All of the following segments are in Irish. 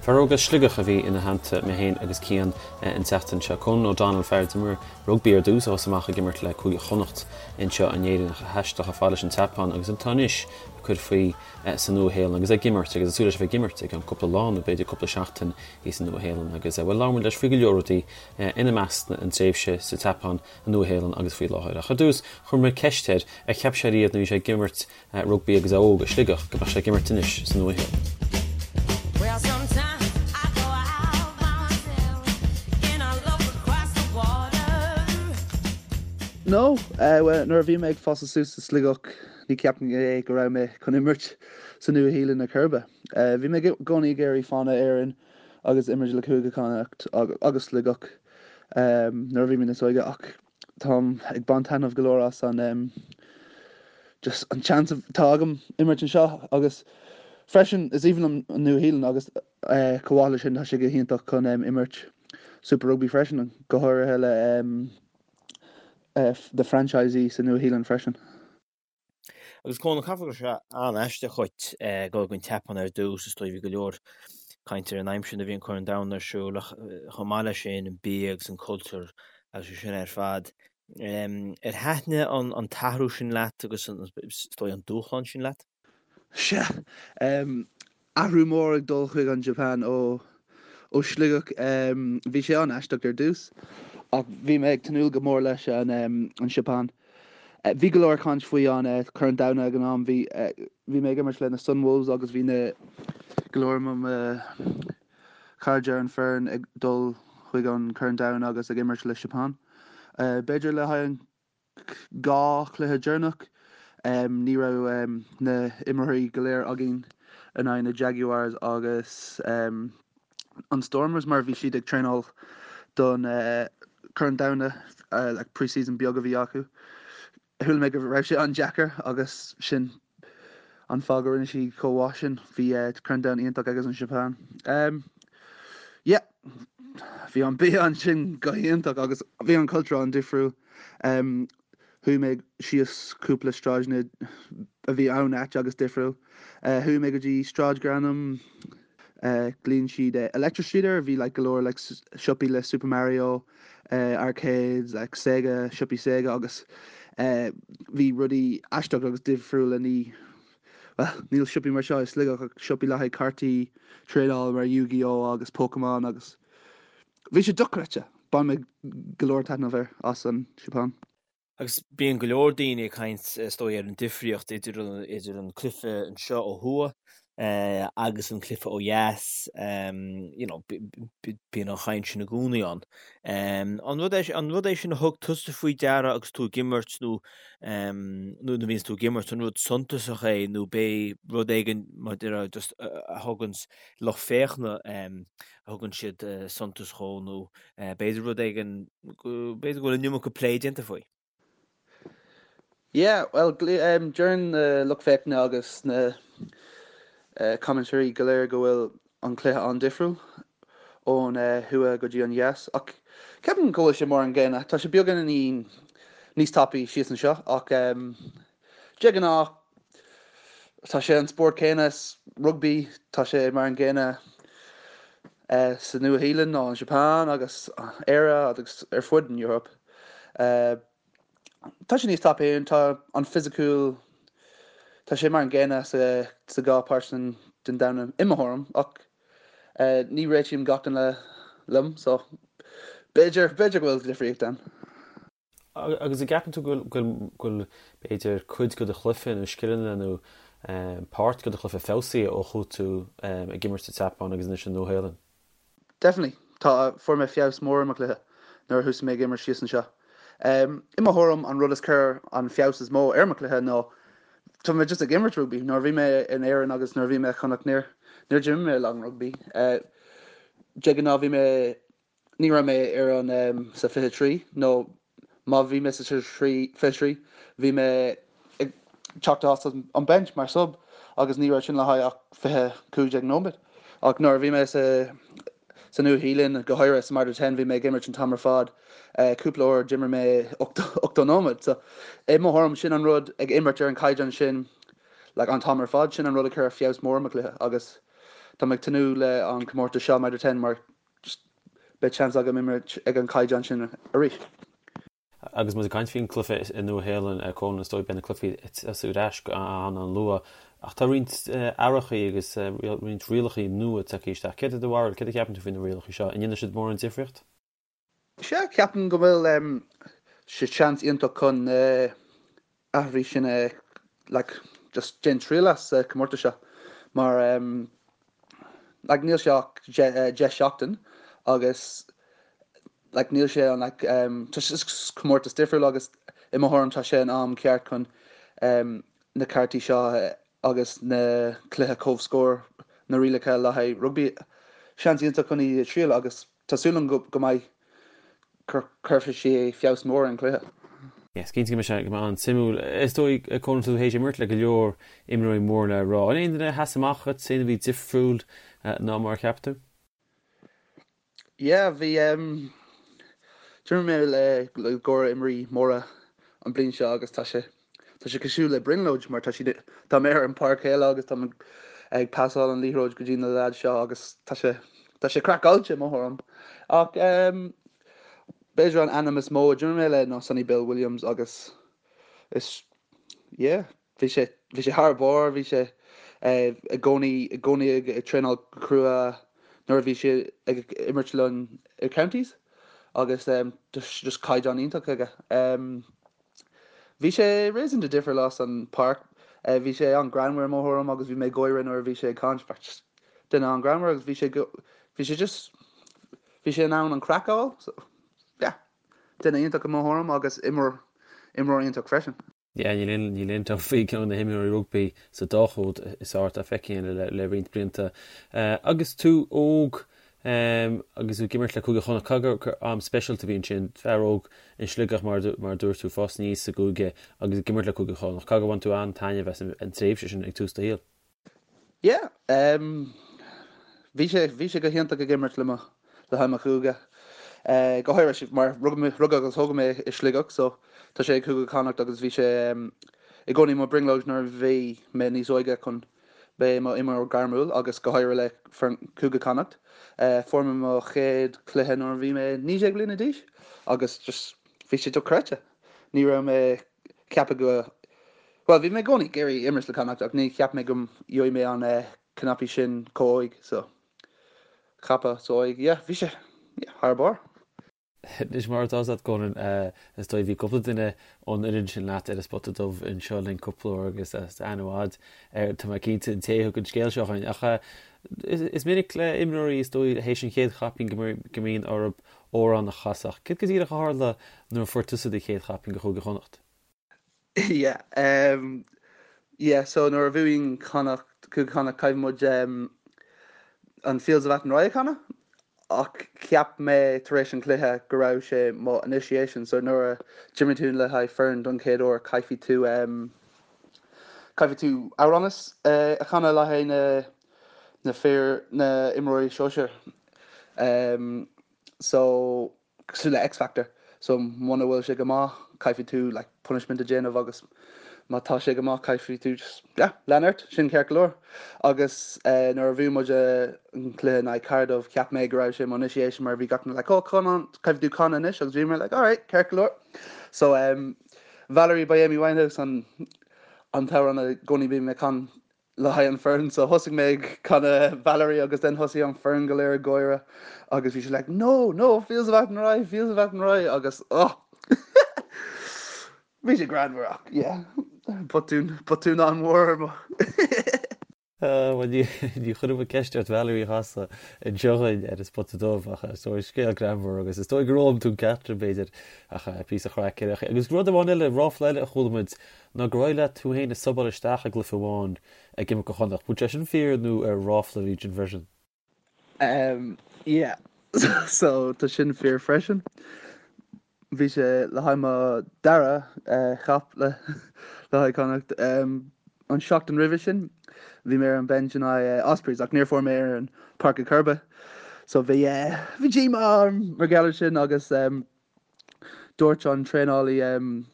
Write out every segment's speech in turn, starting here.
Fear óg as Sligeach a bhí ina theannta, mé féin agus Cian an tseachtain seo. Conan O'Donnell, fear a d'imir rugbaí ar dtús, a thosaigh amach ag imirt le Cúige Chonnacht anseo in Éirinn ach a thaistil chomh fada leis an tSeapáin agus atá anois ag cur faoi sa Nua-Shéalainn agus ag imirt agus ag súil leis a bheith ag imirt i gceann cúpla lá nó b'fhéidir cúpla seachtain thíos sa Nua-Shéalainn agus, bhuel, labhair muid leis faoi go leor rudaí, ina measc an tréimhse sa tSeapáin, an Nua-Shéalainn agus faoi láthair. Ach ar dtús, chuir mé ceist air ar cheap sé riamh nuair a bhí sé ag imirt rugbaí agus é óg i Sligeach go mbeadh sé ag imirt anois sa Nua-Shéalainn. No, bhuel, nuair a bhí mé ag fás suas i Sligeach ní cheapaim é go raibh mé chun imirt sa Nua-Shéalainn ar chor ar bith. Bhí mé i gcónaí ag iarraidh fanacht in Éirinn agus imirt le Cúige Chonnacht agus Sligeach nuair a bhí mé níos óige ach táim ag baint taitneamh go leor as an just an chance atá agam imirt anseo agus freisin is aoibhinn liom an Nua-Shéalainn agus chomh maith leis sin tá sé go hiontach chun imirt Super Rugby freisin go háirithe le the franchisee sa Nua-Shéalainn freisin. Agus Conan, caithfidh go raibh sé an-aisteach dhuit dul go an tSeapáin ar dtús, is dóigh bhí go leor caint ar an aimsir nuair a bhí an Corn Domhanda ar siúl ach chomh maith leis sin an bia agus an cultúr agus é sin ar fad. Ar thaitnigh an t-athrú sin leat agus is dóigh an dúshlán sin leat? Sea. Athrú mór ag dul chuig an Japan ó Sligeach. Bhí sé an-aisteach ar dtús ach bhí mé ag tnúth go mór leis an Seapáin. Bhí go leor caint faoi an Corn Domhanda ag an am. Bhí bhí mé ag imirt le na Sunwolves agus bhí na go leor mo chairde ar an foireann ag dul chuig an Corn Domhanda agus ag imirt le Japan. B'fhéidir le haghaidh an 2 chluiche deireanach. Ní raibh na imreoirí go léir againn in aghaidh na Jaguars agus an Stormers mar bhí siad ag traenáil don Chorn Domhanda, like pre-season beag a bhí acu. Chuala mé go raibh sé an-deacair agus sin an fáth go rinne siad chomh mhaith sin. Bhí Corn Domhanda iontach agus an Seapáin. Yeah, bhí an bia ansin go hiontach agus bhí an cultúr an-difriúil. Chuaigh mé síos cúpla sráideanna a bhí an-ait agus difriúil. Chuaigh mé go dtí sráid gur ainm glaonn siad Electric Street air, bhí like go leor like siopaí le Super Mario, arcades, like Sega, siopaí Sega agus bhí rudaí aisteach agus difriúla ní, bhuel, níl siopaí mar seo i Sligeach ach siopaí le haghaidh cártaí traenála mar Yu-Gi-Oh agus Pokemon agus bhí sé dochreidte! Bhain mé go leor taitneamh air as an Seapáin. Agus bíonn go leor daoine ag caint, is dóigh, ar an difríocht idir idir an cluiche anseo ó thuaidh agus an cluiche ó dheas. You know, bíonn an chaint sin i gcónaí ann. An rud é an rud é sin a thug tusa faoi deara agus tú ag imirt nó nuair a bhíonns tú ag imirt, an rud suntasach é nó b'é rud éigin mar a déarfá just a thuganns lucht féachana a thugann siad suntas dhó nó b'fhéidir rud éigin, b'fhéidir go bhfuil an iomarca plé déanta faoi. Yeah, bhuel, deireann na lucht féachana agus na commentairí go léir go bhfuil an cluiche an-difriúil ón thuaidh go dtí an dheas ach ceapaim go bhfuil sé mar an gcéanna. Tá sé beagáinín níos tapaí síos anseo ach De ghnáth, tá sé an spórt céanna is rugbaí, tá sé mar an gcéanna sa Nua-Shéalainn nó an Seapáin agus Éire agus ar fud an Eoraip. Tá sé níos tapaí, tá an fisiciúil, tá sé mar an gcéanna sa dhá páirt den domhan i mo thuairim ach ní réitím gach duine liom so b'fhéidir, b'fhéidir go bhfuil difríocht ann. Agus an gceapann tú go bhfuil, b'fhéidir, cuid de do chluiche nó scileanna nó páirt de do chluiche feabhsaithe ó chuaigh tú ag imirt sa tSeapáin agus anois sa Nua-Shéalainn? Definitely. Tá, fuair mé feabhas mór i mo chluiche nuair a thosaigh mé ag imirt síos anseo. I mo thuairim, an rud is chuir an feabhas is mó ar mo chluiche ná tá mé just ag imirt rugbaí. Nuair a bhí mé in Éirinn agus nuair a bhí mé i Chonnacht níor, níor d'imir mé a lán rugbaí. De ghnáth bhí mé Ní raibh mé ar an sa 23 nó má bhí mé sa 23 bhí mé ag teacht as an bench mar sub agus ní raibh sin le haghaidh ach 20, 15 nóiméad. Ach nuair a bhí mé sa sa Nua-Shéalainn, go háirithe sa Mitre 10, bhí mé ag imirt an t-am ar fad. Cúpla uair d'imir mé 80 nóiméad. So i mo thuairim sin an rud ag imirt ar an caighdeán sin like an t-am ar fad, sin an rud a chuir feabhas mór ar mo chluiche agus. tá mé ag tnúth le an comórtas seo Mitre 10 mar just beidh seans agam imirt ag an caighdeán sin arís. Agus muid ag caint faoin cluiche i Nua Shéalainn, Conan, is dóigh beidh na cluichí ag tosú ar ais an-an-luath ach tá roinnt athrachaí agus roinnt rialachaí nua tagtha isteach. Céard é do bharúil, céard a cheapann tú faoi na rialachaí seo? An ndéanfaidh siad mórán difríocht? Sea, ceapaim go bhfuil sé seans iontach chun na athruithe sin a like just déan triail as sa comórtas seo mar like níl sé ach 10 seachtain agus like níl sé an like tá sé comórtas difriúil agus i mo thuairim tá sé an am ceart chun na cártaí seo agus na cluiche comhscór na rialacha le haghaidh rugbaí seans iontach chun iad a triail agus Tá súil agam go mbeidh, cuirfidh sé feabhas mór ar an chluiche. Is cinnte go mbeidh sé go mbeidh an-suimiúil. Is dóigh, Conan, tá tú théis imirt le go leor imreoirí mór le rá. An aon duine a sheas amach dhuit, aon a bhí difriúil ná mar a cheap tú? Yeah, bhí, d'imir mé le go leor imreoirí móra an bliain seo agus tá sé, Tá sé cosúil le brionglóid mar tá siad, tá mé ar an páirc chéile agus tá mé ag pasáil an liathróid go dtí na leaids seo agus tá sé, tá sé craiceáilte i mo thuairim. Ach b'fhéidir an ainm is mó a d'imir mé le ná Sonny Bill Williams agus is, yeah, bhí sé, bhí sé thar barr, bhí sé i gcónaí, i gcónaí ag traenáil go crua nuair a bhí sé ag imirt linn i counties agus just caighdeán iontach aige. Bhí sé réasúnta difriúil as an páirc. Bhí sé an-greannmhar i mo thuairim agus bhí mé ag gáire nuair a bhí sé ag caint. Just duine an-greannmhar agus bhí sé go, bhí sé just, bhí sé in ann an craic a fháil. So, yeah, duine iontach i mo thuairim agus imreoir, imreoir iontach freisin. Yeah, níl aon, níl aon dabht faoi ceann de na himreoirí rugbaí sa dá chód is fearr atá feicthe againn le, le roinnt blianta. Agus tú óg, Agus tú ag imirt le Cúige Chonnacht, caithfidh gur am speisialta a bhí ansin, fear óg in Sligeach mar a dúirt tú, ag fás aníos sa gcúige agus ag imirt le Cúige Chonnacht. Caithfidh gur bhain tú an-taitneamh as an tréimhse sin ag tús do shaoil. Yeah, bhí sé, bhí sé go hiontach ag imirt le mo, le haghaidh mo chúige. Go háirithe mar rugadh agus tógadh mé i Sligeach so tá sé ag Cúige Chonnacht agus bhí sé i gcónaí mo brionglóid nuair a bhí mé níos óige chun Beith i mo imreoir gairmiúil agus go háirithe le foireann Cúige Connacht. Fuair mé mo chéad chluiche nuair a bhí mé 19 bliana d'aois agus just bhí sé dochreidte. Ní raibh mé ceapadh go, bhuel bhí mé i gcónaí ag iarraidh imirt le Connacht ach ní cheap mé go gheobhaidh mé an cnaipí sin chomh óig so ceapadh so óig yeah bhí sé yeah thar barr. Anois mar atá 's agat Conan, is dóigh bhí cúpla duine ón fhoireann sin leat ar an Spota Dubh anseo linn cúpla uair agus tá aithne mhaith air, tá mé cinnte, an té a thug an scéal seo chugainn. Ach is minic le imreoirí is dóigh théis an chéad chaipín go mbíonn orthu amhrán a chasadh. Céard go díreach a tharla nuair a fuair tusa do chéad chaipín do Chúige Chonnacht? Yeah um yeah so nuair a bhuaíonn Connacht, Cúige Chonnacht caithfidh muid um an Fields of Athenry a chanadh ach cheap mé tar éis an chluiche go raibh sé mo initiation so nuair a d'imir tú le haghaidh foireann don chéad uair caithfidh tú um caithfidh tú amhrán a chanadh le haghaidh na na fir na imreoirí sóisir um so cosúil le X-Factor so muna bhfuil sé go maith caithfidh tú like punishment a déanamh agus má tá sé go maith caithfidh tú just yeah lean ort sin ceart go leor agus eh, nuair a bhuaigh muid eh, an cluiche in aghaidh Cardiff cheap mé go raibh sé mo initiation mar bhí gach duine like oh come on caithfidh tú canadh anois agus bhí mé like alright ceart go leor so um, Valerie by Amy Winehouse an an t-amhrán i gcónaí bím ag canadh le haghaidh an foireann so thosaigh mé ag canadh Valerie agus then thosaigh an foireann go léir ag gáire agus bhí sé like no no Fields of Athenry Fields of Athenry agus oh bhí sé greannmhar ach yeah botún botún an-mhór ar mo Bhuel ní ní chuirfidh mé ceist ort Valerie a chasadh anseo againn ar an Spota Dubh ach is dóigh scéal greannmhar agus is dóigh gur fhoghlaim tú an ceacht sin b'fhéidir ach píosa chraic ar Agus rud amháin eile, ráfla eile a chuala muid ná gur éirigh leat tú féin a subáil isteach i gcluiche amháin ag imirt do Chonnacht. Bhfuil sé sin fíor nó ar ráfla a bhí ansin freisin? Um yeah so tá sin fíor freisin. Bhí sé le haghaidh mo dara cap le le haghaidh Connacht. Um an seachtain roimhe sin bhí mé ar an bench in aghaidh Ospreys ach níor fuair mé ar an páirc ar chor ar bith. So bhí bhí díomá orm mar gheall ar sin agus um dúirt an traenálaí um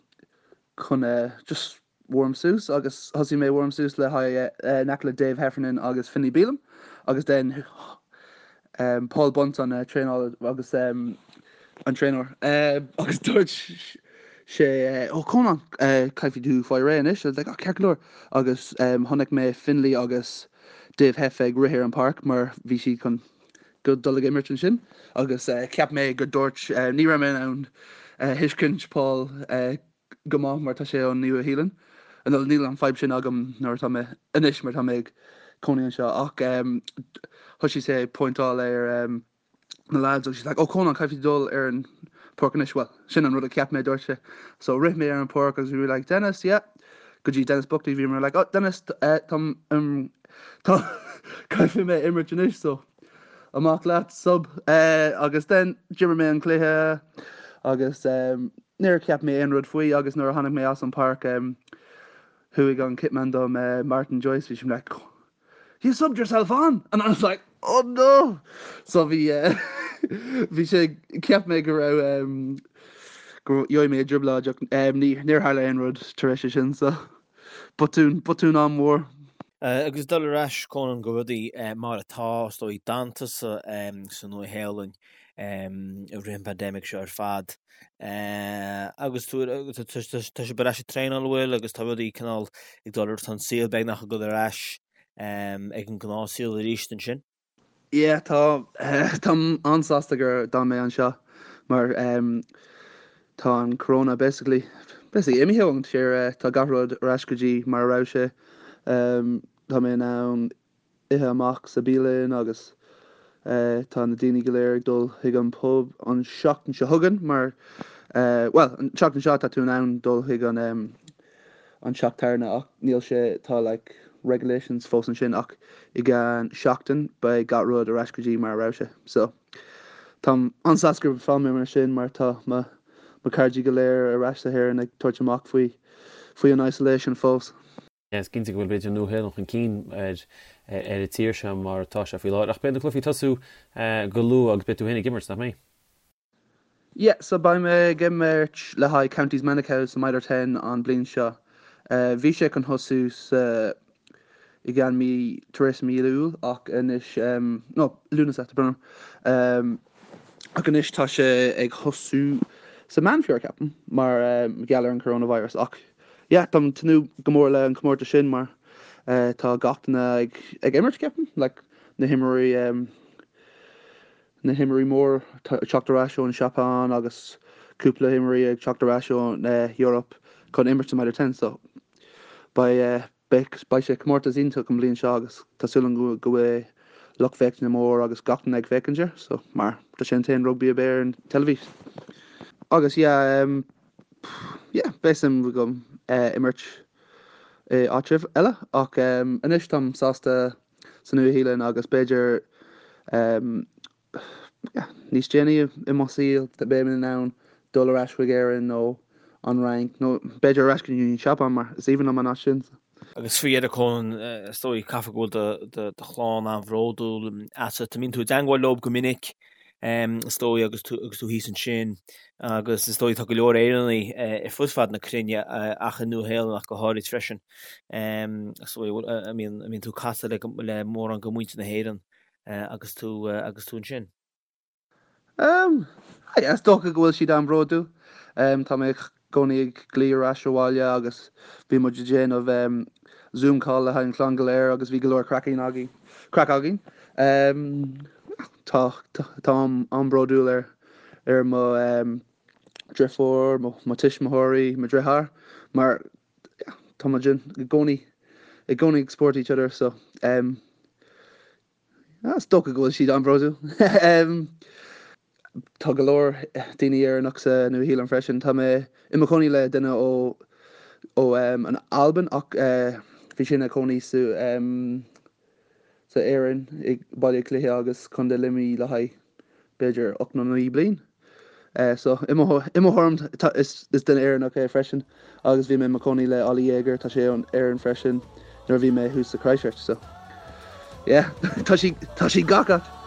chun just warm suas agus thosaigh mé warm suas le haghaidh in aice le Dave Heffernan agus Finlay Bealham. Agus then Paul Bunce an traenáil agus an traenáir agus dúirt sé oh Conan caithfidh tú fáil réidh anois. I was like oh ceart go leor agus chonaic mé Finlay agus Dave Heff ag rith ar an páirc mar bhí siad chun go dul ag imirt ansin agus cheap mé go dúirt ní raibh mé in ann thuiscint Paul go maith mar tá sé ón Nua Shéalainn. Nó níl an fadhb sin agam nuair atá mé anois mar tá mé ag cónaí anseo ach thosaigh sé ag pointeáil ar na lads agus he's like oh Conan caithfidh tú dul ar an páirc anois well sin an rud a cheap mé dúirt sé. So rith mé ar an páirc agus bhí mé like Denis yeah go dtí Denis Buckley bhí mé like oh Denis tá tá caithfidh mé imirt anois so amach leat sub agus then d'imir mé an cluiche agus níor cheap mé aon rud faoi agus nuair a tháinig mé as an páirc thuig an kitman dom Martin Joyce bhí sé like you subbed yourself on and I was like oh no so bhí bhí sé cheap mé go raibh go gheobhaidh mé i dtrioblóid ach níor tharla aon rud tar éis sin so Botún, botún an-mhór. Agus dul ar ais, Conan, go rudaí mar atá, is dóigh, d'fhan tusa sa Nua-Shéalainn i rith an pandemic seo ar fad. Agus tú, tá sibh ar ais ag traenáil, an bhfuil, agus tá rudaí cineál ag dul ar, tá an saol beagnach ag dul ar ais ag an ngnáthshaol arís ansin. Yeah tá táim an-sásta gur d'fhan mé anseo mar tá an corona basically basically imithe ón tír tá gach rud ar ais go dtí mar a raibh sé tá mé in ann ithe amach sa bialann agus tá na daoine go léir ag dul chuig an pub an seachtain seo chugainn mar bhuel an tseachtain seo tá tú in ann dul chuig an an teach tábhairne ach níl sé, tá like regulations fós ansin ach i gceann seachtain beidh gach rud ar ais go dtí mar a raibh sé. So táim an-sásta gur fhan mé mar sin mar tá mo mo cairde go léir ar ais sa hÉireann ag tabhairt amach faoi faoi an isolation fós. Is cinnte go bhfuil b'fhéidir an Nua-Shéalainn chun cinn ar ar an tír seo mar atá sé faoi láthair ach beidh na cluichí ag tosú go luath agus beidh tú féin ag imirt, nach mbeidh? Yeah, so beidh mé ag imirt le haghaidh Counties Manukau sa Mitre 10 an bliain seo. Bhí sé chun thosú sa i gceann mí tar éis mí Iúil ach anois no Lúnasa tá brón orm. Ach anois tá sé ag thosú sa Meán Fómhair ceapaim mar gheall ar an coronavirus ach yeah táim ag tnúth go mór le an comórtas sin mar tá gach duine ag ag imirt ceapaim like na himreoirí na himreoirí mór ag teacht ar ais ón Seapáin agus cúpla imreoirí ag teacht ar ais ón Eoraip chun imirt sa Mitre 10 so beidh beidh sé comórtas iontach an bhliain seo agus tá súil agam go bhfuil lucht féachana mór agus gach duine ag féachaint air so mar tá sé an t-aon rugbaí a bheidh ar an teilifís. Agus yeah um, yeah beidh suim agam imirt i áit eile ach um, anois táim sásta sa Nua-Shéalainn agus b'fhéidir níos déanaí i mo saol beidh mé in ann dul ar ais chuig Éirinn nó an Fhrainc nó b'fhéidir ar ais go dtí an Seapáin mar is aoibhinn liom an áit sin. Agus faoi dheireadh Conan, is dóigh, caithfidh go bhfuil do chlann an-bhródúil asat. An mbíonn tú i dteangmháil leo go minic, is dóigh, agus tú agus tú thíos ansin agus is dóigh tá go leor Éireannaigh ar fud fad na cruinne ach i Nua-Shéalainn ach go háirid freisin. Is dóigh an mbíonn tú ag casadh le mórán de mhuintir na hÉireann agus tú agus tú ansin. Is dócha go bhfuil siad an-bhródúil. Tá mé i gcónaí ag glaoch ar ais abhaile agus bhí muid ag déanamh Zoom call le haghaidh an chlann go léir agus bhí go leor craic againn. Craic againn. Tá táim an-bhródúil ar ar mo dheirfiúr, mo tuismitheoirí, mo dheartháir mar Tá muid i gcónaí i gcónaí ag support each other so um, is dócha go bhfuil siad an-bhródúil. um, tá go leor daoine Éireannach sa Nua-Shéalainn freisin. Tá mé i mo chónaí le duine ó ó um, an Albain ach uh, bhí sé ina chónaí sa um, sa Éirinn i Baile Átha Cliath agus Contae Luimnigh le haghaidh b'fhéidir 8 nó 9 bliain. So i mo thuairim is duine Éireannach é freisin agus bhí mé i mo chónaí le Ollie Jager, tá sé ón Éirinn freisin nuair a bhí mé thuas sa Christchurch so yeah tá sí tá sí gach áit.